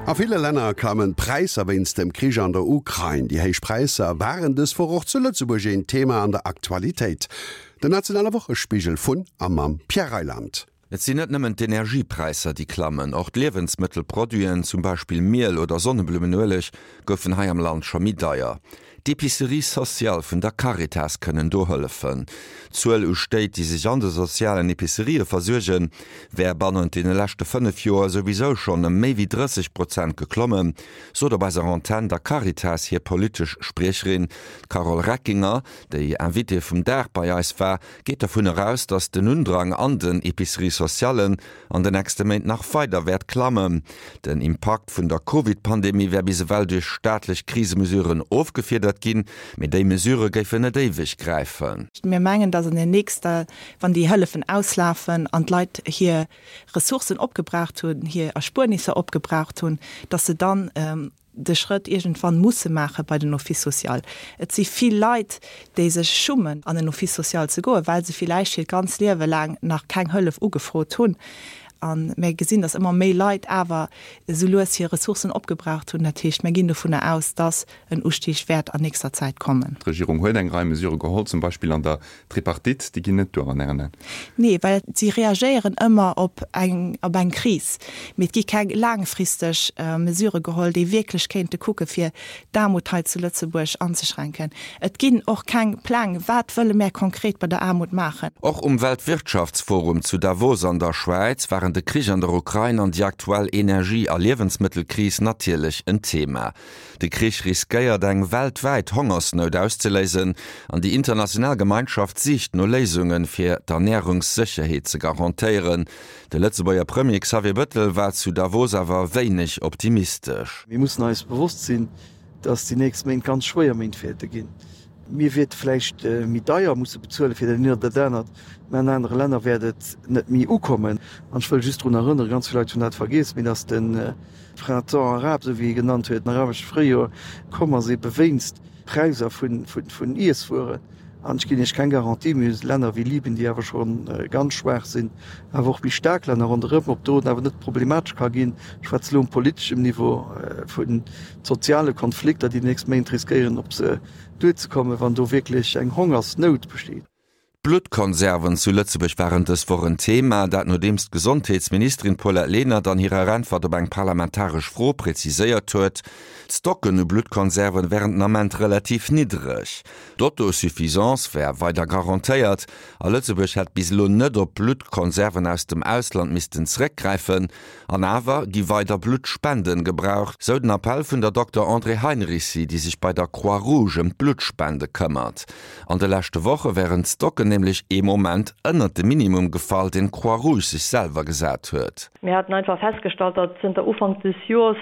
A ville Länner klammen d'Präisser wéinst dem Krich an der Ukrain. Déi héich Präisser waren dës Woch och zu Lëtzebuerg een Thema an der Aktualitéit. Den nationale Wochespigel vun a mam Pierre Reyland. Et sinn net nëmmen d'Energiepräisser, déi klammen, och d'Liewensmëttelproduiten, zum Beispill Miel oder Sonneblummenueleg, goufen hei am Land scho méi deier. D'Epiceries sociales vun der Caritas kënnen do hëllefen. D'Zuel u Stéit, déi sech an de sozialen Epicerië versuergen, wär bannent deene leschte 5 Joer souwisou schonn ëm méi wéi 30 Prozent geklommen, sot op eiser Antenn der Caritas hir politesch Spriecherin. D'Carole Reckinger, déi Invitée vum Dag bei eis war, geet dovun eraus, datt den Undrang an den Epiceries sociallen an de nächste Méint nach weider wäert klammen. Den Impakt vun der Covid-Pandemie wär bis ewell duerch staatlech Krisemesuren ofgefiedert ginn, mee déi Mesurë géifen net éiweg gräifen. Mir mengen, datt an den nächster, wann déi Hëllefen auslafen an d'Leit hir Ressourcen opgebraucht hunn, hir Erspuernisser opgebraucht hunn, datt se dann de Schrëtt iergendwann musse maache bei den Office social. Et si vill Leit, déi sech schummen, an den Office social ze goen, well se villäicht hiert ganz Liewe laang nach keng Hëllef ugefrot hunn. A mir gesinn, dass ëmmer méi Leit awer esou lues hir Ressourcen opgebraucht hunn. Dat heescht, mir ginn dovunner aus, dass en Ustig wäert an nächster Zäit kommen. D'Regierung huet eng Rei Mesurë geholl, zum Beispill an der Tripartite, déi ginn net duer an Ären Aen? Nee, well si reagéieren ëmmer op eng, op eng Kris. Mee et gi keng laangfristeg Mesurë geholl, déi wierklech kéinte kucke fir d'Aarmut hei zu Lëtzebuerg anzeschränken. Et ginn och keng Pläng, wat wëlle mär konkret bei der Aarmut maachen. Och um Weltwirtschaftsforum zu Davos an der Schwäiz waren de Krich an der Ukrain an déi aktuell Energie a Liewensmëttelkris natierlech en Thema. De Krich riskéiert eng weltwäit Hongersnout auszeléisen an déi international Gemeinschaft sicht no Léisungen, fir d'Ernärungssécherheet ze garantéieren. De Lëtzebuerger Premier Xavier Bëttel war zu Davos awer wéineg optimistesch. Mir mussen eis bewosst sinn, datt déi nächst Méint ganz schwéier Méint wäerte ginn. Mir wäerte vläicht méi deier musse bezuele fir dat eent oder dat anert, mä an anere Länner wäert et net méi ukommen. An ech wëll just drun erënneren, ganz vill Leit hunn dat vergiess, mee datt de Printemps arabe, esou wéi e genannt huet, den arabesche Fréijoer, komm ass ebe wéinst Präiser vun Iesswueren. An ech ginn Iech keng Garantie, mir hu Länner wéi Libyen, déi awer scho ganz schwaach sinn, awer och méi staark Länner ronderëm, ob do et awer net problematesch ka ginn, ech schwätze elo um politeschem Niveau, vu soziale Konflikter, déi déi nächst Méint riskéieren op se duerzekommen, wann do wierklech eng Hongersnout besteet. D'Bluttkonserven zu Lëtzebuerg waren dës Woch en Thema, dat nodeems d'Gesondheetsministerin Paulette Lenert an hirer Äntwert op eng parlamentaresch Fro präziséiert huet, d'Stocken u Bluttkonserven wären den Ament relativ niddreg. D'Autosuffisance wär weider garantéiert a Lëtzebuerg hätt bis elo net op Bluttkonserven aus dem Ausland missten zeréckgräifen. An awer gi weider Bluttspenden gebraucht, sou den Appell vun der Dokter Andrée Heinricy, déi sech bei der Croix Rouge ëm d'Bluttspende këmmert. An de leschte Woche wären d'Stocken nämlech ee Moment ënnert de Minimum gefall, deen d'Croix Rouge sech selwer gesat huet. Mir haten einfach festgestallt, datt zënter Ufank des Joers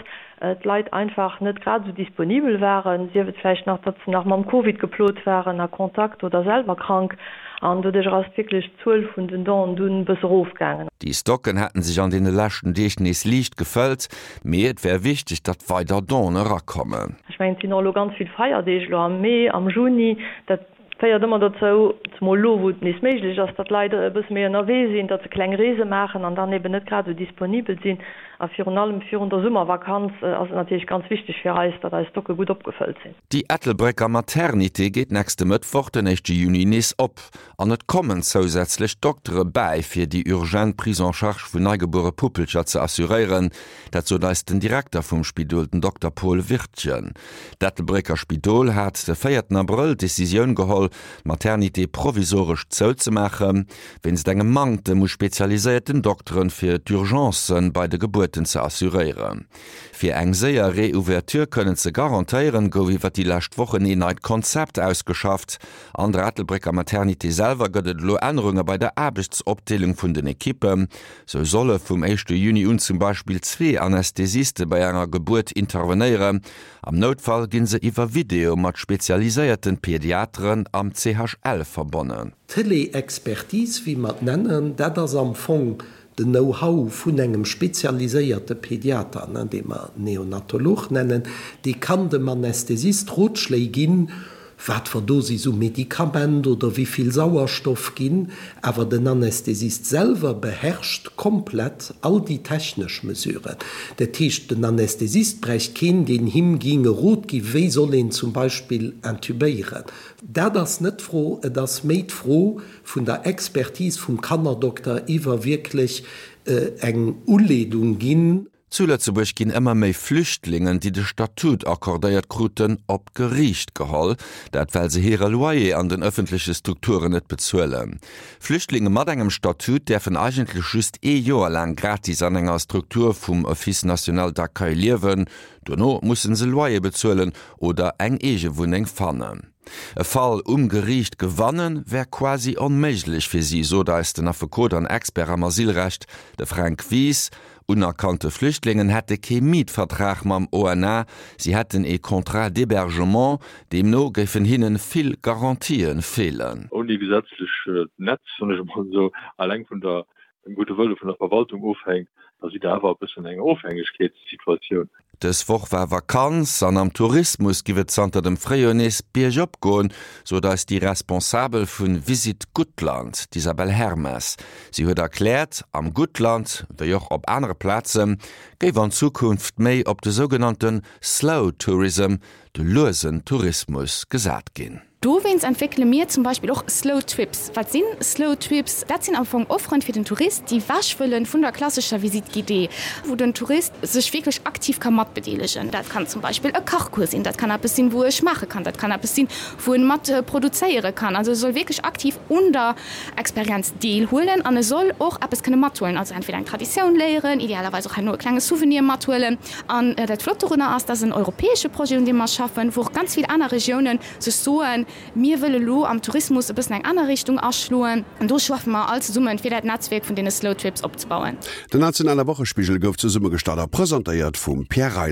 d'Leit einfach net grad esou disponibel waren, sief et vläicht nach, datt se nach mam Covid geplot waren, a Kontakt oder selwer krank. An doduerch ass wierklech d'Zuel vun den Donen dunn e bësse erofgaangen. Déi Stocken hätten sech an deene leschten Deeg nees liicht gefëllt, mee et wär wichteg, datt weider Donen erakommen. Ech mengen, et sinn och elo ganz vill Feierdeeg elo am Mee, am Juni. Dat féiert ëmmer dozou, zemol elo wou et nees méiglech ass, datt d'Leit e bësse méi ënnerwee sinn, datt se kleng Reese maachen an dann eben net grad esou disponibel sinn. A virun allem virun der Summervakanz ass et natierlech ganz wichteg fir eis, datt eis Stocke gutt opgefëllt sinn. Déi Ettelbrécker Maternité geet nächste Mëttwoch, den éischte Juni, nees op an et kommen zousätzlech Doktere bäi, fir déi urgent Prise en charge vun neigebuere Puppelcher ze assuréieren. Dat sot eis den Direkter vum Spidol, den Dokter Paul Wirtgen. D'Ettelbrécker Spidol hat de véierten Abrëll d'Decisioun geholl, d'Maternité provisoresch zouzemaachen, wéinst engem Manktem u spezialiséierten Dokteren, fir d'Urgencen bei de Gebuerten ze assuréieren. Fir eng séier Reouverture kënnen ze garantéieren, gouf iwwer déi lescht Wochen een neit Konzept ausgeschafft. An der Ettelbrécker Maternité selwer gëtt et elo Ännerunge bei der Aarbechtsopdeelung vun den Ekippen. Sou solle vum éischte Juni un zum Beispill zwee Anästhesiste bei enger Gebuert intervenéieren. Am Noutfall ginn se iwwer Video mat spezialiséierten Pediateren am CHL verbonnen. D'Télé-Expertise, wéi mer et nennen, dat ass am Fong den Know-how vun engem spezialiséierte Pediater, dee mer Neonatolog nennen, dee kann dem Anästhesist Rotschléi ginn. Wat fer Dosis u Medikament oder wéi vill Sauerstoff ginn, awer den Anästhesist selwer beherrscht komplett all déi technesch Mesuren. Dat heescht, den Anästhesist bräicht keen, deen him ging e Rot gi wéi soll een zum Beispill intubéieren. Dat ass net d'Fro, et ass méi d'Fro vun der Expertise vum Kannerdokter iwwer wierklech eng Uleedung ginn. Zu Lëtzebuerg ginn ëmmer méi Flüchtlingen, déi de Statut accordéiert kruten, op d'Geriicht geholl. Dat well se hire Loyer an den ëffentleche Strukturen net bezuelen. Flüchtlinge mat engem Statut däerfen eigentlech just ee Joer laang gratis an enger Struktur vum Office national d'accueil liewen. Dono musse se Loyer bezuelen oder eng eege Wunneng fannen. E Fall um Geriicht gewannen, wär quasi onméiglech fir si, sot eis den Affekot an Expert am Asylrecht, de Fränk Wies. Unerkannte Flüchtlingen hätte kee Mietvertrag mam ONA, si hätten ee Contrat d'hébergement, deemno géifen hinne vill Garantië feelen. Ouni gesetzlech Netz, soen ech emol esou, eleng vun der dem gudde Wëlle vun der Verwaltung ofhänkt, da sidd Der awer e bëssen an enger Ofhängegkeetssituatioun. Dës Woch war Vakanz an am Tourismus giff et zanter dem Fréijoer nees biergop goen, sot eis déi Responsabel vu Visit Guttland, d'Isabelle Hermes. Si huet erkläert, am Guttland, wéi och op anere Plaze géif an Zukunft méi op de sougenannte Slow Tourism, de luesen Tourismus, gesat ginn. Dowéinst entwéckele mir zum Beispill och Slow Trips. Wat sinn Slow Trips? Dat sinn am Fong Offeren fir den Tourist, déi wech wëllen vun der klassescher Visite guidée, wou den Tourist sech wierklech aktiv ka matbedeelegen. Dat kann zum Beispill e Kachcours sinn, dat kann eppes sinn, wou e schmaache kann, dat kann eppes sinn, wou en mat produzéiere kann. Also e soll wierklech aktiv un der Experienz deelhuelen an e soll och eppes kënne mathuelen, also entweder eng Traditioun léieren, idealerweis och herno e klenge Souvenir mathuelen. An dat Flott dorunner ass, dat ass en europäesche Projet, un deem mer schaffen, wou och ganz vill aner Regiounen sech soen, Mir wëlle lo am Tourismus e bëssen eng aner Richtung aschloen. An do schaffe mer all zesummen, fir dat Netzwierk vun deene Slow Trips opzebauen. Den nationale Wochespigel gouf zesummegestallt a presentéiert vum Pierre Reyland.